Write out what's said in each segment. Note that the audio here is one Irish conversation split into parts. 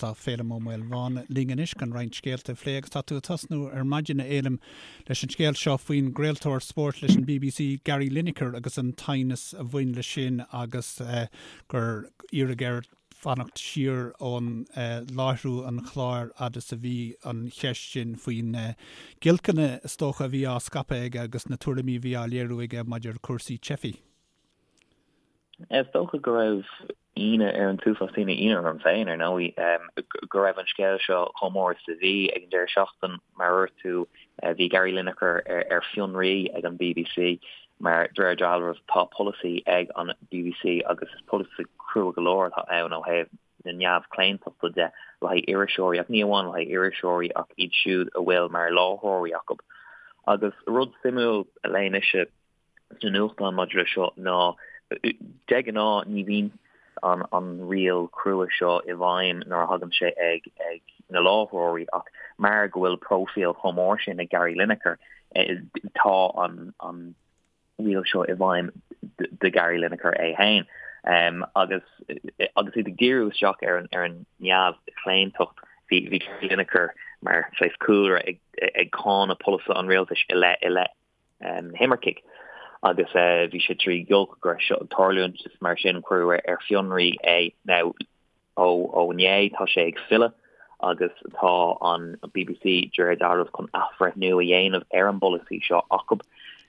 Tá Féilim Ó Maolmhána linn anois chun roinnt scéalta a phlé agus tá tú ag tosnú ar maidin, a Fhéilim, leis an scéal seo faoin gcraoltóir spóirt leis an bbc, Gary Lineker agus an t-aighneas a bhain leis sin agus gur iarradh air fanacht siar ón láithriú an chláir fhad is a bhí an cheist sin faoi na giolcanna is dócha a bhí á scaipeadh aige agus na tuairimí a bhí á léiriú aige maidir le cúrsaí teifigh. Is dócha go raibh ionadh ar an t-uafás daoine, ionadh orm féin ar ndóigh, go raibh an scéal seo chomh mór is a bhí ag an deireadh seachtain. Mar a dúirt tú, bhí Gary Lineker ar fionraí ag an bbc mar de réir dealraimh tá polasaí ag an bbc agus is polasaí crua go leor atá ann ó thaobh na neamhchlaontachta de le haghaidh iriseoirí ach ní amháin le haghaidh iriseoirí ach iad siúd a bhfuil mar láithreoirí acu. Agus rud suimiúil a léigh mise, sna nuachtáin maidir leis seo ná de ghnáth ní bhíonn an an riail crua seo i bhfeidhm nuair a thagann sé ag ag na láithreoirí ach mar go bhfuil próifíl chomh mór sin ag Gary Lineker tá an an riail seo i bhfeidhm do Gary Lineker é féin. Um, agus agus iad ag díriú isteach ar an ar an neamhchlaontacht bhí bhí Gary Lineker mar saghas cúlra ag ag cáineadh polasaithe an rialtais i leith i leith na himircigh agus bhí sé trí ghiolc go raibh seo ag tarlúint is mar sin cuireadh ar fionraí é. Now ó ó inné tá sé ag filleadh agus tá an bbc de réir dealraimh chun athbhreithniú a dhéanamh ar an bpolasaí seo acu.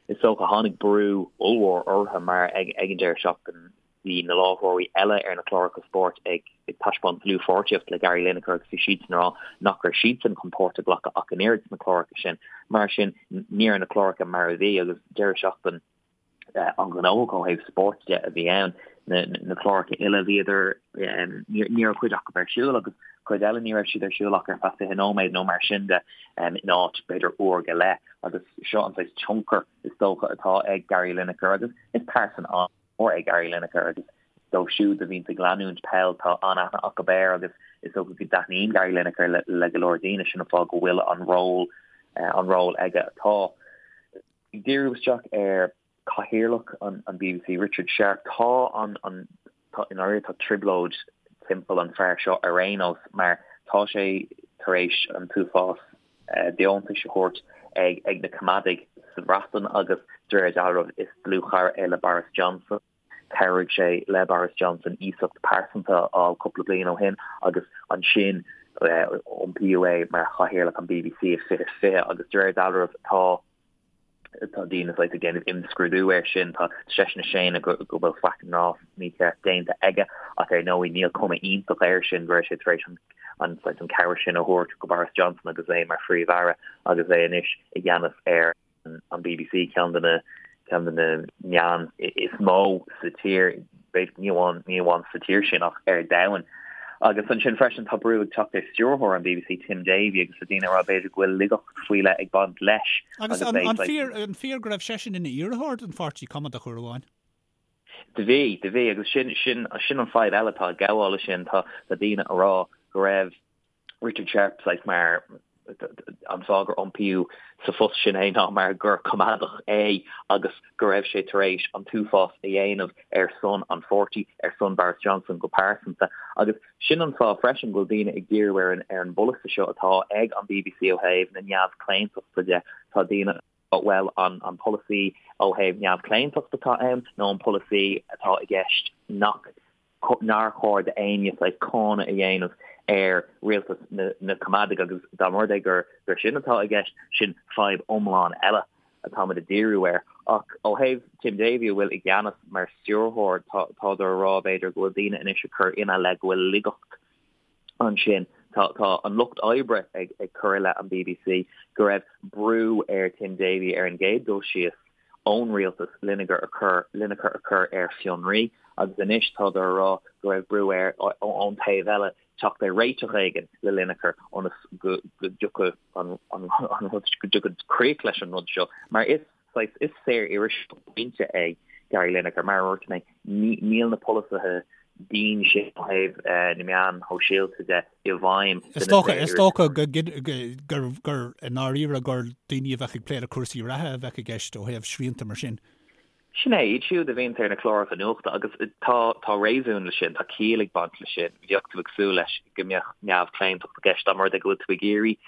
Is dócha tháinig brú ollmhór orthu mar ag ag an deireadh seachtaine Bhí na láithreoirí eile ar na cláracha spóirt ag taispeáint dlúthpháirtíocht le Gary Lineker agus bhí siadsan ag rá nach raibh siadsan chun páirt a ghlacadh ach an oiread sna cláracha sin. Mar sin, ní raibh na cláracha mar a bhí agus deireadh seachtain an-ghnóthach ó thaobh spóirt de a bhí ann. Na cláracha uile bhíodar, ní raibh cuid acu ar siúl agus cuid eile ní raibh siad ar siúl ach ar feadh 20 nóiméad nó mar sin de in áit b'fhéidir uair go leith agus seo an saghas tionchar is dócha atá ag Gary Lineker agus is pearsan an mór é Gary Lineker agus dóibh siúd a bhíonns ag leanúint peil tá an-aithne acu air agus is dócha go dtaitníonn Gary Lineker le, le go leor daoine sin an fáth go bhfuil an ról an ról aige atá. Ag díriú isteach ar cathaoirleach an, an bbc Richard Sharp tá an, an tá i ndáiríre tá trioblóid timpeall an fear seo ar aon nós mar tá sé tar éis an t-uafás deontais a thabhairt ag na Coimeádaigh sa Bhreatain agus de réir dealraimh is dlúthchara é le Boris Johnson. Chabhraigh sé le Boris Johnson iasacht pearsanta a fháil cúpla bliain ó shin agus ansin iompaíodh é mar chathaoirleach an bbc i 2020 agus de réir dealraimh tá Tá daoine saghas ag déanamh imscrúdú air sin. Tá seisean ag séanadh go go bhfuil faic ná mícheart déanta aige ach ar ndóigh níl cuma iontach air sin go raibh sé tar éis an an saghas an cabhair sin a thabhairt go Boris Johnson agus é mar Phríomh-Aire agus é anois i gceannas ar an bbc, ceann de na ceann de na meáin is mó sa tír, b'fhéidir ní amháin ní amháin sa tír sin ach ar domhan. Agus ansin freisin tá brú ag teacht ar stiúrthóir an bbc Tim Davie agus tá daoine ag rá b'fhéidir go bhfuil laigeacht faoi leith ag baint leis. Agus an an fíor an fíor go raibh seisean ina iarrthóir don pháirtí Coimeádach uair amháin? Do bhí, do bhí agus sin sin sin an fadhb eile atá ag gabháil leis sin tá tá daoine ag rá go raibh Richard Sharp saghas mar an fáth gur iompaíodh sa phost sin é ná mar gur coimeádach é agus go raibh sé tar éis an t-uafás a dhéanamh ar son an pháirtí, ar son Boris Johnson go pearsanta. Agus sin an fáth freisin go bhfuil daoine ag díriú ar an ar an bpolasaí seo atá ag an bbc ó thaobh na neamhchlaontachta de. Tá daoine bhuel an an polasaí ó thaobh neamhchlaontacht atá ann nó an polasaí atá i gceist nach nár chóir d'éinne saghas cáineadh a dhéanamh ar rialtas na Coimeádaigh agus dá mba rud é gur gur sin atá i gceist, sin fadhb iomlán eile atáimid ag díriú air. Ach ó thaobh Tim Davie a bhfuil i gceannas mar stiúrthóir, tádar a rá b'fhéidir go bhfuil daoine anois ag cur ina leith go bhfuil laigeacht ansin. Tá tá an lucht oibre ag ag cur i leith an bbc go raibh brú ar Tim Davie ar an gcéad dul síos ón rialtas Lineker a chur Lineker a chur ar fionraí agus anois tádar a rá go raibh brú air ón taobh eile teacht ar réiteach éigin le Lineker ionas go go dtiocfadh an an rud go dtiocfadh críoch leis an rud seo mar is saghas is saor-iriseoir pointe é Gary Lineker mar a dúirt mé níl na polasaithe dian sin ó thaobh na meáin shóisialta de i bhfeidhm Is dócha, is dócha go, gur, gur i ndáiríre gur daoine a bheadh ag plé le cúrsaí reatha a bheadh i gceist ó thaobh srianta mar sin. Sin é, iad siúd a bhíonns ar na cláracha nuachta agus tá tá réasún leis sin, tá ciall ag baint leis sin. Bheadh tú ag súil leis go mbeadh neamhchlaontacht i gceist dá mba rud é go bhfuil tú ag iarraidh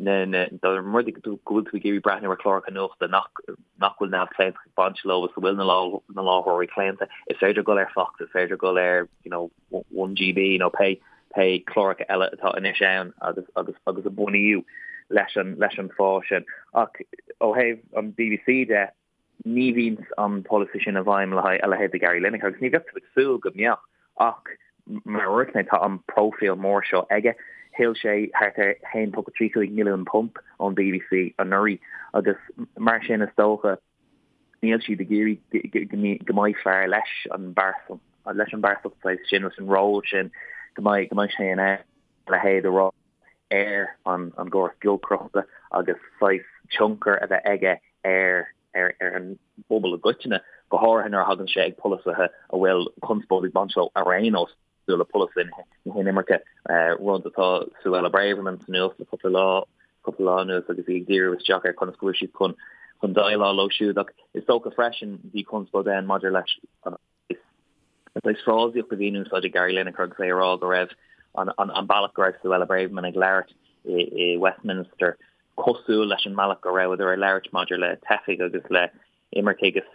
na na dá mba rud é go bhfuil tú ag iarraidh breathnú ar chláracha nuachta nach nach bhfuil neamhchlaontacht ag baint leo is a bhfuil na na láithreoirí claonta, is féidir dul ar Fox, is féidir dul ar you know 1GB nó pé pé cláracha eile atá anois ann agus agus agus a bunaíodh leis an leis an fáth sin. Ach ó thaobh an BBC de, ní bhíonn an polasaí sin i bhfeidhm le haghaidh a leithéid de Gary Lineker agus ní bheadh tú ag súil go mbeadh ach mar a dúirt mé tá an próifíl mór seo aige. Thuill sé thart ar £1.35 milliún ón BBC anuraidh agus mar sin is dócha níl siad ag iarraidh go mbeidh fear leis an bpearsan leis an bpearsantacht saghas sin leis an ról sin go mbeidh go mbeidh sé in ann a leithéid a rá ar an an gcóras giolcaireachta agus saghas tionchar a bheith aige ar ar ar an bpobal i gcoitinne, go háirithe nuair a thagann sé ag polasaithe a bhfuil conspóid ag baint leo ar aon nós, cosúil le polasaí na hinimirce, rud atá Suella Braverman sa nuacht le cúpla lá cúpla lá anuas agus í ag díriú isteach ar conas go bhfuil siad chun chun déileáil leo siúd. Ach is dócha freisin bhí conspóid ann maidir leis an saghas frásaíocht a bhí in úsáid ag Gary Lineker agus é ag rá go raibh an bealach go raibh Suella Braverman ag labhairt i Westminster cosúil leis an mbealach go rabhadar ag labhairt maidir le teifigh agus le imircigh is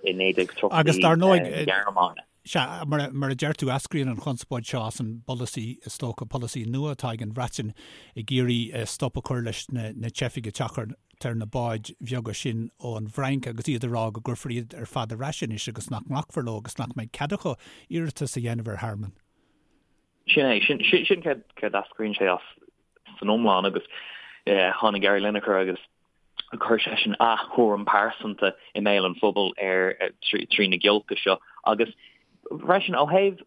i 1930 Agus dar ndóigh, na Gearmáine. Sea, mar a deir tú, eascraíonn an chonspóid seo as an bpolasaí, is dócha, polasaí nua atá ag an Bhreatain ag iarraidh stop a chur leis na teifigh ag teacht ar na báid bheaga sin ón bhFrainc agus iad ag rá go gcuirfear iad ar fad ar ais anois agus nach nglacfar leo agus nach mbeidh cead acu iarratas a dhéanamh ar thearmann. Sin é, sin sin céard céard eascraíonn sé as san iomlán agus tháinig Gary Lineker agus chuir seisean a thuairim pearsanta i mbéal an phobail ar trí na giolca seo agus freisin ó thaobh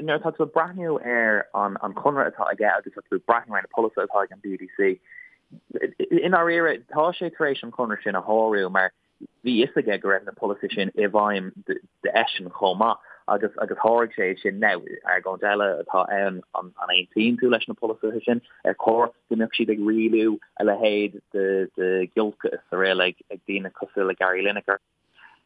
nuair atá tú ag breathnú ar an an conradh atá aige agus tá tú ag breathnú ar na polasaithe atá ag an BBC i ndáiríre tá sé tar éis an conradh sin a shárú mar bhí fhios aige go raibh na polasaithe sin i bhfeidhm d'eisean chomh maith agus agus sháraigh sé sin. Now, argóint eile atá ann, an aontaíonn tú leis na polasaithe sin? Ar chóir go mbeadh siad ag rialú a leithéid de de ghiolca is araile ag ag daoine cosúil le Gary Lineker?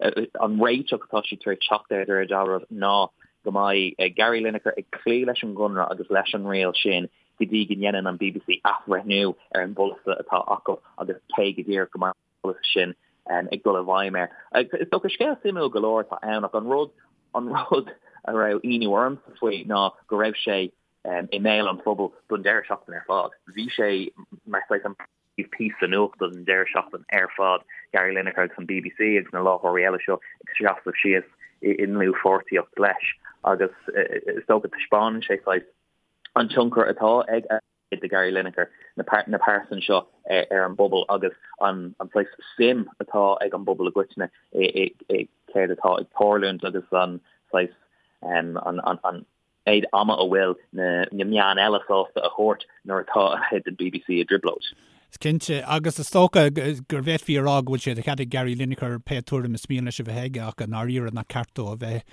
An réiteach atá siad tar éis teacht air de réir dealraimh ná go mbeidh Gary Lineker ag cloí leis an gconradh agus leis an riail sin go dtí go ndéanann an BBC athbhreithniú ar an bpolasaí atá acu agus cé go díreach go mbeidh polasaithe sin ag dul i bhfeidhm air. Is dócha scéal suimiúil go leor atá ann ach an rud an rud a raibh ionadh ormsa faoi ná go raibh sé i mbéal an phobail don deireadh seachtaine ar fad. Bhí sé mar saghas an píosa nuachta don deireadh seachtaine ar fad, Gary Lineker agus an BBC agus na láithreoirí eile seo ag seasamh síos i ndlúthpháirtíocht leis agus is dócha taispeánann sé saghas an tionchar atá ag de Gary Lineker, na pearsain seo ar an bpobal agus an saghas suim atá ag an bpobal i gcoitinne i céard atá ag tarlúint agus an saghas an méid ama a bhfuil na meáin eile sásta a thabhairt nuair atá a leithéid den BBC i dtrioblóid. Is cinnte, agus is dócha go bhféadfaí a rá go bhfuil sé de chead ag Gary Lineker pé tuairim is mian leis a bheith aige ach i ndáiríre nach ceart dó a bheith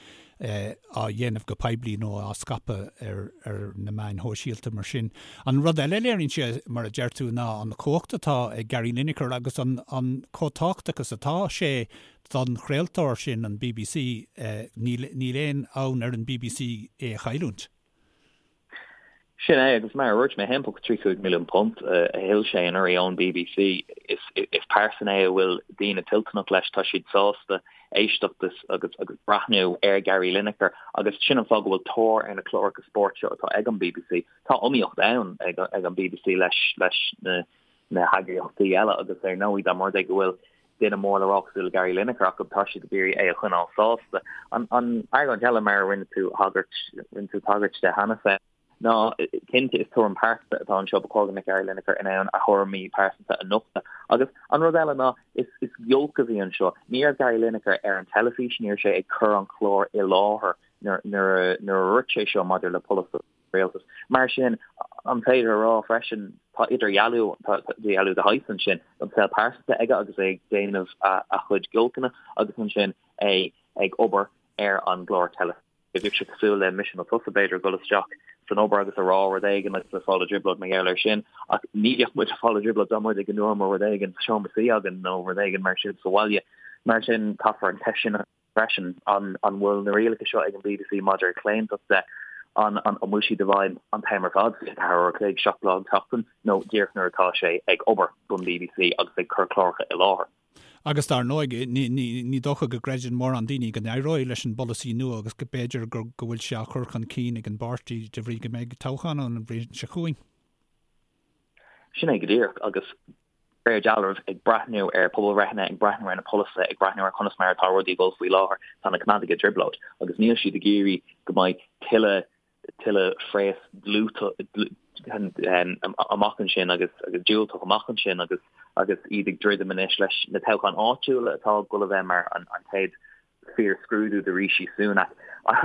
á dhéanamh go poiblí nó á scaipeadh ar na meáin shóisialta mar sin. An rud eile a léiríonn sé, mar a deir tú, ná an chumhacht atá ag Gary Lineker agus an chomh tábhachtach is atá sé don chraoltóir sin, an bbc. Níl aon fhonn ar an bbc é a chailliúint. Sin é, agus mar a dúirt mé, £1.35 milliún a thuill sé anuraidh ón bbc. Is pearsan é a bhfuil daoine toilteanach leis, tá siad sásta éisteacht agus agus breathnú ar Gary Lineker agus sin an fáth go bhfuil tóir ar na cláracha spóirt seo atá ag an bbc. Tá iomaíocht ann ag an bbc leis leis na na heagraíochtaí eile agus ar ndóigh dá mba rud é go bhfuil duine mór le rá cosúil le Gary Lineker acu tá siad ag iarraidh é a choinneáil sásta. An an argóint eile mar a rinne tú thagairt rinne tú tagairt de cheana féin ná cinnte is tuairim pearsanta atá anseo ba chóir go mbeadh Gary Lineker in ann a thuairimí pearsanta a nochtadh. Agus an rud eile ná is is giolc a bhí anseo. Ní raibh Gary Lineker ar an teilifís, ní raibh sé ag cur an chláir i láthair nuair nuair nuair a dúirt sé seo maidir le polasaithe rialtais. Mar sin, an féidir a rá freisin, tá idirdhealú, tá idirdhealú de shaghas ansin, an saol pearsanta aige agus é ag déanamh a chuid giolcanna agus ansin é ag obair ar an gclár teilifíse. Bheadh sé cosúil le mise nó tusa, b'fhéidir, ag dul isteach san obair agus a rá rud éigin agus ag fáil i dtrioblóid mar gheall air sin, ach ní bheadh muid ag fáil i dtrioblóid dá mba rud é go ndúramar rud éigin sa seomra suí againn nó rud éigin mar sin sa bhaile. Mar sin, caithfear an cheist sin a freisin, an bhfuil na rialacha seo ag an bbc maidir le claontacht de, an bhfuil siad i bhfeidhm an t-am ar fad, 24 uair a chloig, 7 lá an tseachtain, nó díreach nuair atá sé ag obair don bbc agus ag cur cláracha i láthair. Agus dar ndóigh, ní dócha go gcreideann mórán daoine go n-éireoidh leis an bpolasaí nua agus go b'fhéidir go bhfuil sé á chur chun cinn ag an bpáirtí de bhrí go mbeidh toghchán ann an bhliain seo chugainn. Sin é go díreach, agus de réir dealraimh, ag breathnú ar pobalbhreitheanna, ag breathnú ar na polasaithe, ag breathnú ar conas mar atá rudaí ag dul faoi láthair, tá na Coimeádaigh i dtrioblóid agus níl siad ag iarraidh go mbeidh tuilleadh tuilleadh phréas amach ansin agus diúltach amach ansin agus agus iad ag druidim anois leis na toghcháin áitiúla atá ag dul a bheith mar an chéad fíor-scrúdú do Rishi Sunak.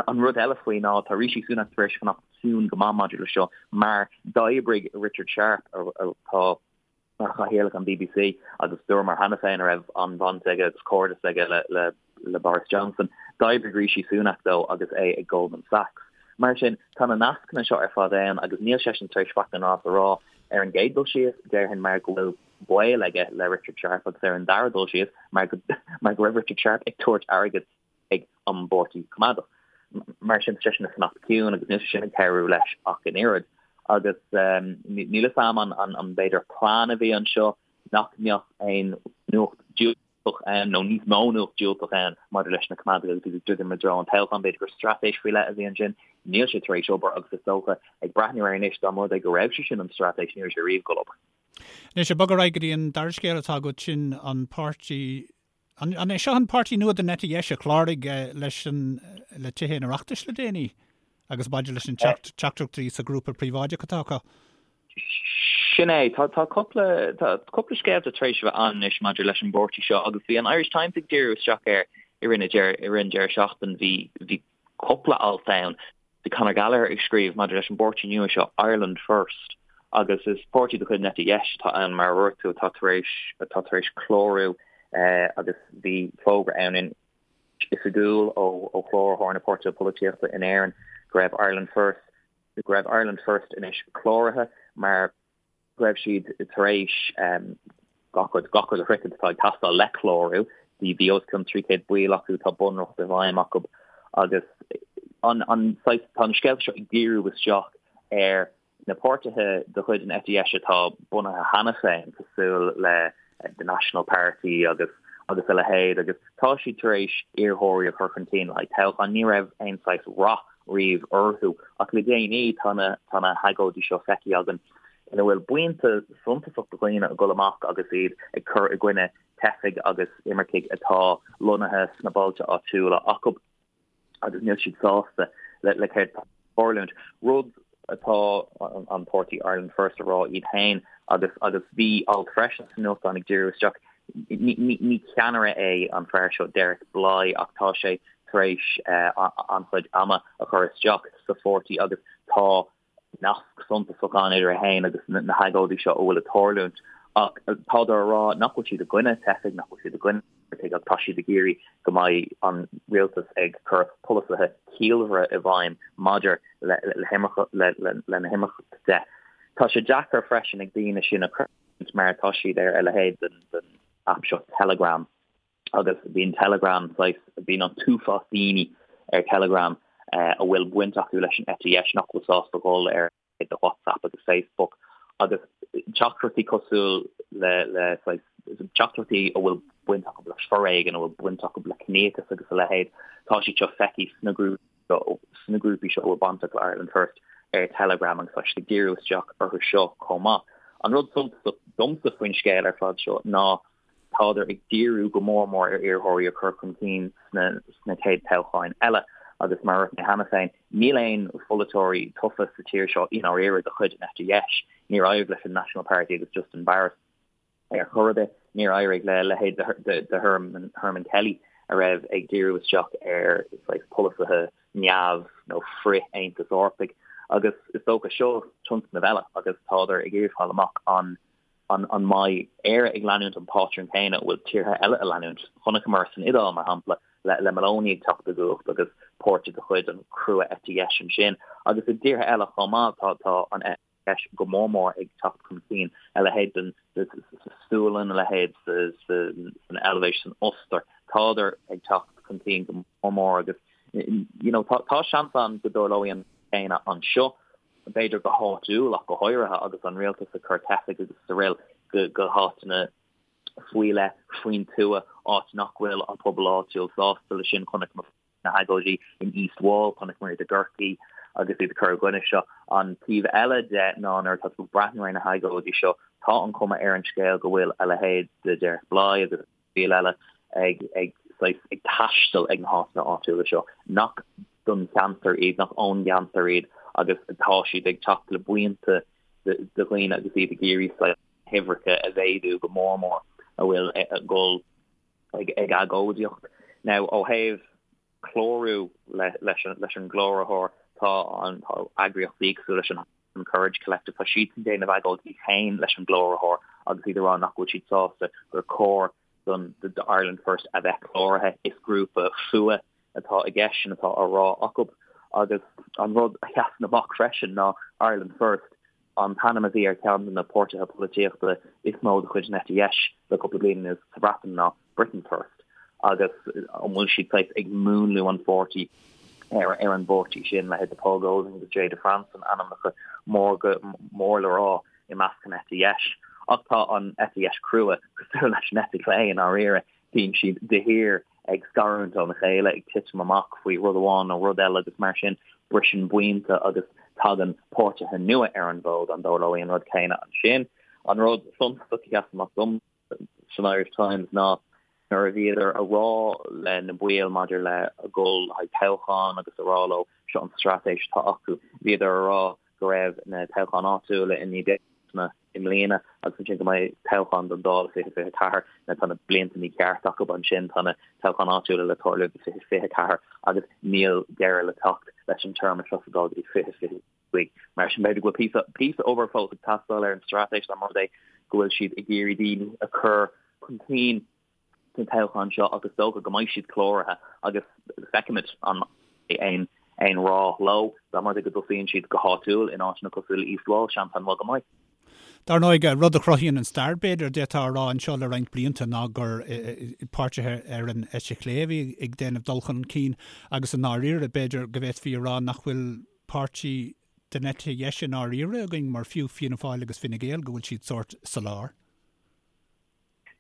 An rud eile faoi ná tá Rishi Sunak tar éis fanacht ciúin go maith maidir le seo mar d'oibrigh Richard Sharp atá mar chathaoirleach an bbc agus dúramar cheana féin a raibh an-bhaint aige agus cairdeas aige le le Boris Johnson. D'oibrigh Rishi Sunak dó agus é ag Goldman Sachs. Mar sin, tá na nascanna seo ar fad ann agus níl seisean tar éis faic ná nas a rá ar an gcéad dul síos, déarfainn mar go bhfuil baol aige le Richard Sharp agus ar an dara dul síos mar go mar go raibh Richard Sharp ag tabhairt airgead ag an bPáirtí Coimeádach. Mar sin, tá seisean ag fanacht ciúin agus níl sé sin ag cabhrú leis ach an oiread. Agus níl fhios a'm an an b'fhéidir plean a bhí anseo nach mbeadh aon nuacht diúltach ann nó níos mó nuacht diúltach ann maidir leis na Coimeádaigh agus iad ag druidim i dtreo an toghcháin. B'fhéidir gur straitéis faoi leith a bhí ansin. Níl sé tar éis obair agus is dócha ag breathnú air anois dá mba rud é go raibh sé sin an straitéis ní raibh sé riamh ag dul obair. Anois, ag bogadh ar aghaidh go dtí an dara scéal atá agat, sin an páirtí An é seo an páirtí nua den eite dheis a chláraigh leis an le Tithe an Oireachtais le déanaí agus maidir leis an teachtaireachtaí sa ghrúpa príobháideach atá acu? Sin é. Tá tá cúpla tá cúpla scéalta tar éis a bheith ann anois maidir leis an bpáirtí seo agus bhí an Irish Times ag díriú isteach air i rith na i rith an deireadh seachtain. Bhí bhí cúpla alt ann. Bhí Conor Gallagher ag scríobh maidir leis an bpáirtí nua seo, Ireland First, agus is páirtí de chuid an eite dheis atá ann, mar a dúirt tú, atá tar éis atá tar éis clárú agus bhí fógra ann in oifigiúil ó ó Chláraitheoir na Páirtithe Polaitíochta in Éirinn go raibh Ireland First go raibh Ireland First anois cláraithe mar go raibh siad tar éis gach rud, gach rud a shroichint atá ag teastáil le clárú. Bhí bhí os cionn 300 baill acu, tá bunreacht i bhfeidhm acu agus an an saghas, tá na scéalta seo ag díriú isteach ar na páirtithe de chuid an eite dheis atá bunaithe cheana féin, cosúil le The National Party agus agus a leithéid agus tá siad tar éis iarrthóirí a chur chun cinn le haghaidh toghchán. Ní raibh aon saghas rath riamh orthu ach le déanaí tá na tá na hagóidí seo feicthe againn ina bhfuil buíonta suntasach de dhaoine ag dul amach agus iad ag cur i gcoinne teifigh agus imircigh atá lonnaithe sna bailte áitiúla acu agus níl siad sásta le le céard atá ag tarlúint. Rud atá an páirtí Ireland First a rá iad féin agus agus bhí alt freisin sa nuachtán ag díriú isteach Ní ceannaire é an fear seo Derek Blighe ach tá sé tar éis an-chuid ama a chur isteach sa pháirtí agus tá nasc suntasach ann idir é féin agus na hagóidí seo a bhfuil ag tarlúint. Ach tádar a rá nach bhfuil siad i gcoinne teifigh, nach bhfuil siad i gcoinne imircigh ach tá siad ag iarraidh go mbeidh an rialtas ag cur polasaithe ciallmhara i bhfeidhm maidir le na himirce de. Tá sé deacair freisin ag daoine sin a mar tá siad ar a leithéid den aip seo Telegram agus bíonn Telegram saghas, bíonn an t-uafás daoine ar Telegram a bhfuil baint acu leis an eite dheis nach bhfuil sásta dhul ar de WhatsApp agus Facebook agus teachtaireachtaí cosúil le le saghas teachtaireachtaí a bhfuil baint acu le foréigean, a bhfuil baint acu le ciníochas agus a leithéid, tá siad seo feicthe sna grúpaí sna grúpaí seo a bhfuil bainteach le Ireland First ar Telegram agus tá siad ag díriú isteach orthu seo chomh maith. An rud suntasach domsa faoin scéal ar fad seo ná tádar ag díriú go mór mór ar iarrthóirí a chur chun cinn sna sna chéad toghcháin eile agus mar a dúirt mé cheana féin, níl aon pholaiteoirí tofa sa tír seo i ndáiríre de chuid an eite dheis. Níor éirigh leis an National Party agus Justin Barrett. Ar chor ar bith, níor éirigh le leithéid de Herman Kelly a raibh ag díriú isteach ar saghas polasaithe neamh nó frith-Aontas Eorpaigh agus is dócha seo tionscnamh eile agus tádar ag iarraidh fáil amach an an an mbeidh Éire ag leanúint an pátrún céanna a bhfuil tíortha eile a leanúint. Chonaiceamar san Iodáil, mar shampla, le le Meloni ag teacht i gcumhacht agus páirtí de chuid an chrua eite dheis ansin agus i dtíortha eile chomh maith tá tá an dheis go mór mór ag teacht chun cinn, a leithéid den sa Sualainn, a leithéid san Eilvéis, san Ostair. Tádar ag teacht chun cinn go mór mór agus you know tá tá seans ann go dtarlóidh an céanna anseo, b'fhéidir go háitiúil ach go háirithe agus an rialtas ag cur teifigh agus araile go go háiteanna faoi leith faoin tuath, áit nach bhfuil an pobal áitiúil sásta leis sin. Chonaic na hagóidí in East Wall, chonaiceamar iad i gCorcaigh agus iad ag cur i gcoinne seo. An taobh eile de ná nuair atá tú ag breathnú ar na hagóidí seo, tá an chuma ar an scéal go bhfuil a leithéid de Derek Blighe agus baill eile ag ag saghas ag taisteal ag na háiteanna áitiúla seo nach don cheantar iad, nach ón gceantar iad agus tá siad ag teacht le buíonta de dhaoine agus iad ag iarraidh saghas na huimhreacha a mhéadú go mór mór a bhfuil ag dul ag agóidíocht. Now, ó thaobh clárú leis an gcláraitheoir, tá an tá eagraíochtaí cosúil leis an Courage Collective, tá siadsan ag déanamh agóid iad féin leis an gcláraitheoir agus iad ag rá nach bhfuil siad sásta gur chóir don do Ireland First a bheith cláraithe. Is grúpa fuath atá i gceist, sin atá á rá acu. Agus an rud a sheasann amach freisin ná Ireland First, an t-ainm a bhí ar cheann de na páirtithe polaitíochta is mó de chuid an eite dheis le cúpla bliain anuas sa Bhreatain ná Britain First agus an bhfuil siad saghas ag múnlú an pháirtí ar ar an bpáirtí sin, leithéid de Paul Golding agus Jayda Fransen, ainmneacha mór go mór le rá i measc an eite dheis. Ach tá an eite dheis crua cosúil leis an eite chlé i ndáiríre. Bíonn siad de shíor ag scarúint óna chéile, ag titim amach faoi rud amháin nó rud eile agus mar sin briseann buíonta agus tagann páirtithe nua ar an bhfód. An dtarlóidh an rud céanna ansin? An rud suntasach a sheas amach dom san Irish Times ná nuair a bhíodar a rá le na baill maidir le a dhul le haghaidh toghchán agus a rá leo seo an straitéis atá acu, bhíodar a rá go raibh na toghcháin áitiúla i mí Bealtaine i mbliana agus ansin go mbeidh toghchán don Dáil i 2024. Now tá na blianta mícheart acu ansin, tá na toghcháin áitiúla le tarlú i 2024 agus níl deireadh le teacht leis an téarma seo sa Dáil go dtí 2025. Mar sin b'fhéidir go bhfuil píosa, píosa obair fós ag teastáil ar an straitéis dá mba rud é go bhfuil siad ag iarraidh daoine a chur chun cinn sna toghcháin seo agus is dócha go mbeidh siad cláraithe agus feicfimid an mbeidh aon aon rath leo dá mba rud é go dtosaíonn siad go háitiúil in áiteanna cosúil le East Wall, seans an-mhaith go mbeidh. Dar ndóigh, rud a chruthaíonn an stair, b'fhéidir, d'fhéadfá a rá anseo le roinnt blianta ná gur páirtithe ar an eite chlé a bhí ag déanamh dul chun cinn agus i ndáiríre, b'fhéidir go bhféadfaí a rá nach bhfuil páirtí den eite dheis i ndáiríre againn mar fiú Fianna Fáil agus Fine Gael go bhfuil siad sórt sa lár.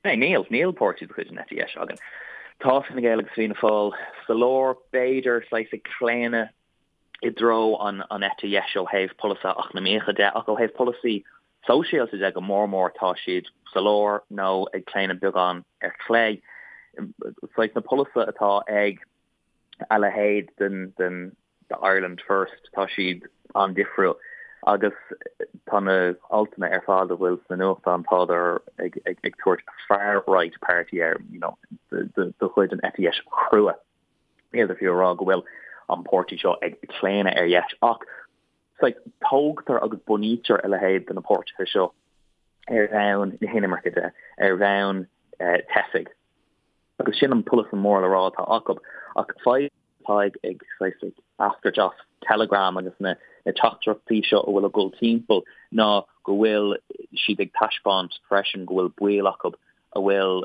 Níl, níl páirtí de chuid an eite dheis againn. Tá Fine Gael agus Fianna Fáil sa lár, b'fhéidir, saghas ag claonadh i dtreo an an eite dheis ó thaobh polasaithe eacnamaíocha de, ach ó thaobh polasaí sóisialta de go mór mór tá siad sa lár nó ag claonadh beagán ar chlé. Saghas na polasaithe atá ag a leithéid den den de Ireland First, tá siad an-difriúil agus tá na altanna ar fad a bhfuil sna nuachtáin, tádar ag ag tabhairt far right party air, you know, de chuid an eite dheis chrua. Níl fiú a rá go bhfuil an páirtí seo ag claonadh ar dheis ach saghas tógtar agus bunaítear a leithéid de na páirtithe seo ar bhonn na hinimirce de, ar bhonn teifigh. Agus sin an polasaí mór le rá atá acu. Ach fadhb atá ag ag saghas ag eascairt as Telegram agus na na teachtaireachtaí seo a bhfuil ag dul timpeall ná go bhfuil siad ag taispeáint freisin go bhfuil baill acu a bhfuil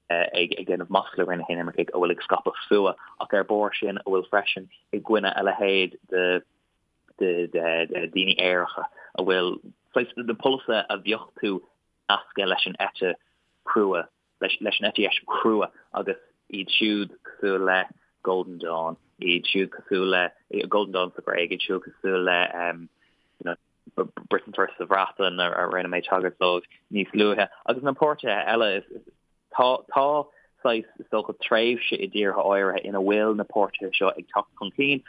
ag ag déanamh masla ar na hinimircigh, a bhfuil ag scaipeadh fuath ach ar barr sin a bhfuil freisin i gcoinne a leithéid de de de daoine aeracha a bhfuil saghas na polasaithe a bheadh tú nasctha leis an eite chrua leis an eite dheis chrua agus iad siúd cosúil le Golden Dawn, iad siúd cosúil le Golden Dawn sa Ghréig, iad siúd cosúil le you know, Britain First sa Bhreatain a rinne mé tagairt dóibh níos luaithe agus na páirtithe eile tá tá saghas is dócha tréimhse i dtíortha áirithe ina bhfuil na páirtithe seo ag teacht chun cinn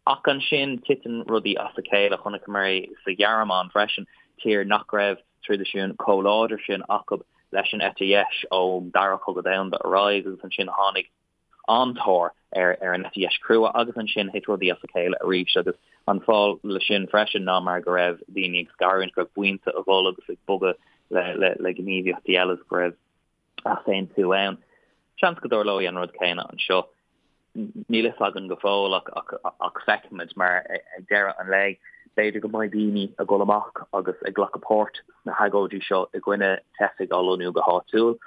Ach ansin titeann rudaí as a chéile. Chonaiceamar é sa Ghearmáin freisin, tír nach raibh traidisiún chomh láidir sin acu leis an eite dheis ón Dara Cogadh Domhanda ar aghaidh agus ansin tháinig an-tóir ar an eite dheis chrua agus ansin thit rudaí as a chéile arís agus an fáth leis sin freisin ná mar go raibh daoine ag scarúint, go raibh buíonta ag dul agus ag bogadh le gníomhaíochtaí eile agus go raibh easaontú ann. Seans go dtarlóidh an rud céanna anseo. Níl fhios againn go fóill ach ach feicfimid mar ag deireadh an lae b'fhéidir go mbeidh daoine ag dul amach agus ag glacadh páirt sna hagóidí seo i gcoinne teifigh á lonnú go háitiúil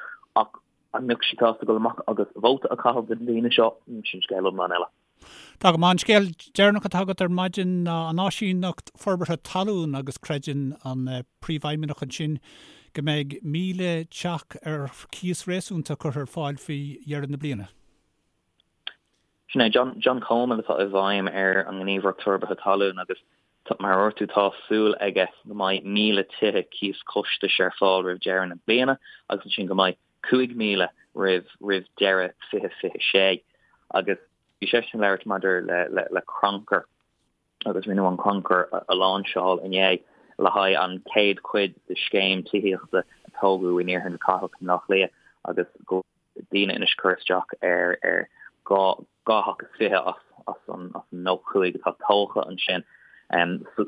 ach. An mbeadh siad sásta dul amach agus vóta a chaitheamh do na daoine seo? Sin scéal iomlán eile. Tá go maith. An scéal deireanach atá agat ar maidin ná an Áisíneacht Forbartha Talún agus creideann an Príomhfheidhmeannach ansin go mbeidh 1,000 teach ar chíos réasúnta curtha ar fáil faoi dheireadh na bliana. Sin é John, John Coleman atá i bhfeidhm ar an nGníomhaireacht Forbartha Talún agus mar a dúirt tú tá súil aige go mbeidh 1,000 tithe cíos costais ar fáil roimh dheireadh na bliana agus ansin go mbeidh 5,000 roimh roimh deireadh 2026 agus bhí seisean ag labhairt maidir le le le crannchur agus rinneadh an crannchur a láinseáil inné le haghaidh an chéad chuid de scéim tithíochta a tógadh in iarthar na cathrach i mBleá Cliath agus go daoine anois cur isteach ar ar 2 theach is 20 as as an as an 95 atá tógtha ansin.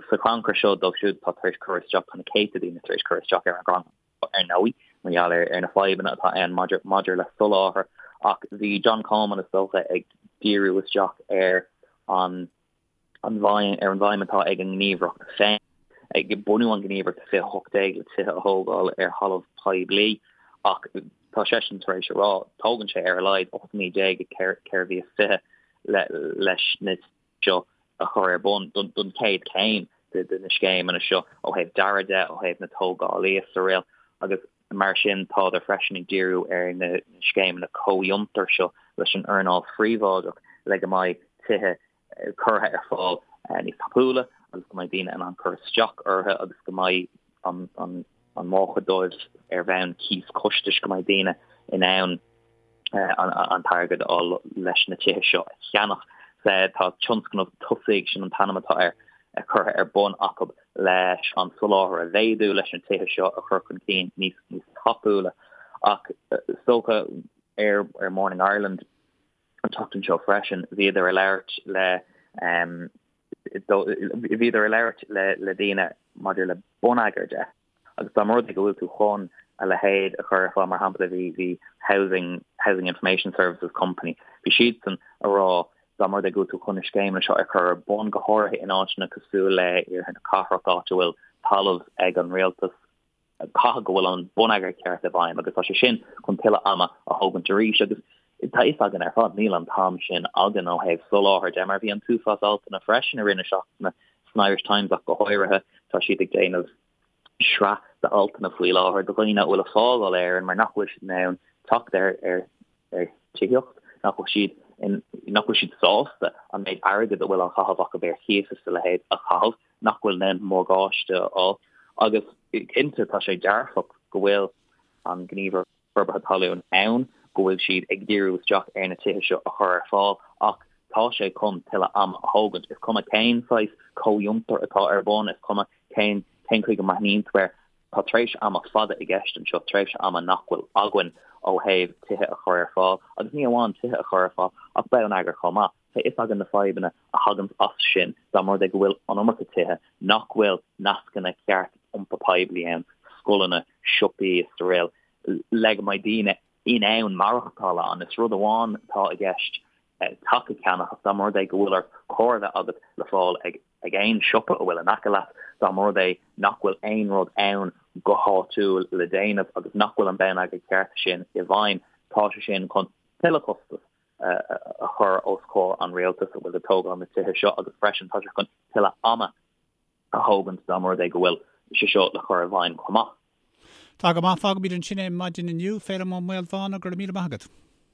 Sa chrannchur seo dóibh siúd atá tar éis cur isteach tá na céadta daoine tar éis cur isteach ar an gcrannchur. ar ndóigh, mar gheall ar na fadhbanna atá ann maidir le soláthar, ach bhí John Coleman, is dócha, ag díriú isteach ar an ar an bhfeidhm atá ag an ngníomhaireacht féin. Ag bunú an ghníomhaireacht i 2018 le tithe a thógáil ar thalamh poiblí, ach tá seisean tar éis a rá, tógann sé ar a laghad 18 mí 4 mhí is 20 leis na seo a chur ar bun don chéad chéim de na scéimeanna seo ó thaobh dearaidh de, ó thaobh na tógálaí is araile agus mar sin tádar freisin ag díriú ar na scéimeanna comhfhiontair seo leis an earnáil phríobháideach le go mbeidh tithe curtha ar fáil níos tapúla agus go mbeidh daoine in ann cur isteach orthu agus go mbeidh an an mórchuid dóibh ar bhonn cíos costais go mbeidh daoine in ann an t-airgead a fháil leis na tithe seo a cheannach. Tá tionscnamh Tosaigh, sin an t-ainm atá air, curtha ar bun acu leis an soláthar a mhéadú, leis na tithe seo a chur chun cinn níos níos tapúla. Ach is dócha ar Morning Ireland an tseachtain seo freisin, bhíodar ag labhairt le bhíodar ag labhairt le daoine maidir le bonneagar de. Agus dá mba rud é go bhfuil tú chun a leithéid a chur ar fáil, mar shampla bhí bhí Housing Housing Information Services Company, bhí siadsan a rá dá mba rud é go bhfuil tú chun na scéimeanna seo a chur ar bun, go háirithe in áiteanna cosúil le iarthar na cathrach, áit a bhfuil talamh ag an rialtas, caithfidh go bhfuil an bonneagar ceart i bhfeidhm agus tá sé sin chun tuilleadh ama a thógaint arís. Agus tá fhios againn ar fad, níl an t-am sin againn ó thaobh soláthair de, mar bhí an t-uafás altanna freisin i rith na seachtaine san Irish Times ach go háirithe, tá siad ag déanamh sraith d'altanna faoi láthair do dhaoine a bhfuil ag fágáil Éireann mar nach bhfuil siad in ann teacht ar ar ar tithíocht, nach bhfuil siad in nach bhfuil siad sásta an méid airgid a bhfuil á chaitheamh acu ar chíos is a leithéid a chaitheamh, nach bhfuil in ann morgáiste a fháil. Agus cinnte tá sé dearfach go bhfuil an Ghníomhaireacht Forbartha Talún ann, go bhfuil siad ag díriú isteach ar na tithe seo a chur ar fáil ach tá sé chun tuilleadh ama a thógaint. Is cuma cén saghas comhfhiontar atá ar bun, is cuma cén cén chaoi go mbreathnaíonn tú air, tá tréimhse ama fada i gceist anseo, tréimhse ama nach bhfuil againn ó thaobh tithe a chur ar fáil agus ní amháin tithe a chur ar fáil ach bonneagar chomh maith. Tá fhios againn na fadhbanna a thaganns as sin dá mba rud é go bhfuil an iomarca tithe, nach bhfuil nascanna ceart iompar poiblí ann, scoileanna, siopaí is araile, le go mbeidh daoine in ann maireachtáil ann. Is rud amháin atá i gceist teach a cheannach ach dá mba rud é go bhfuil ort carr a bheith agat le fáil ag ag aon siopa a bhfuil in aice leat, dá mba rud é nach bhfuil aon rud ann go háitiúil le déanamh agus nach bhfuil an bonneagar ceart sin i bhfeidhm, tá sé sin chun tuilleadh costas a chur os comhair an rialtais a bhfuil ag tógáil na tithe seo agus freisin tá sé chun tuilleadh ama a thógaint dá mba rud é go bhfuil sé seo le cur i bhfeidhm chomh maith. Tá go maith, fágfaimid ansin é maidin inniu. Féilim Ó Maolmhána, go raibh míle maith agat.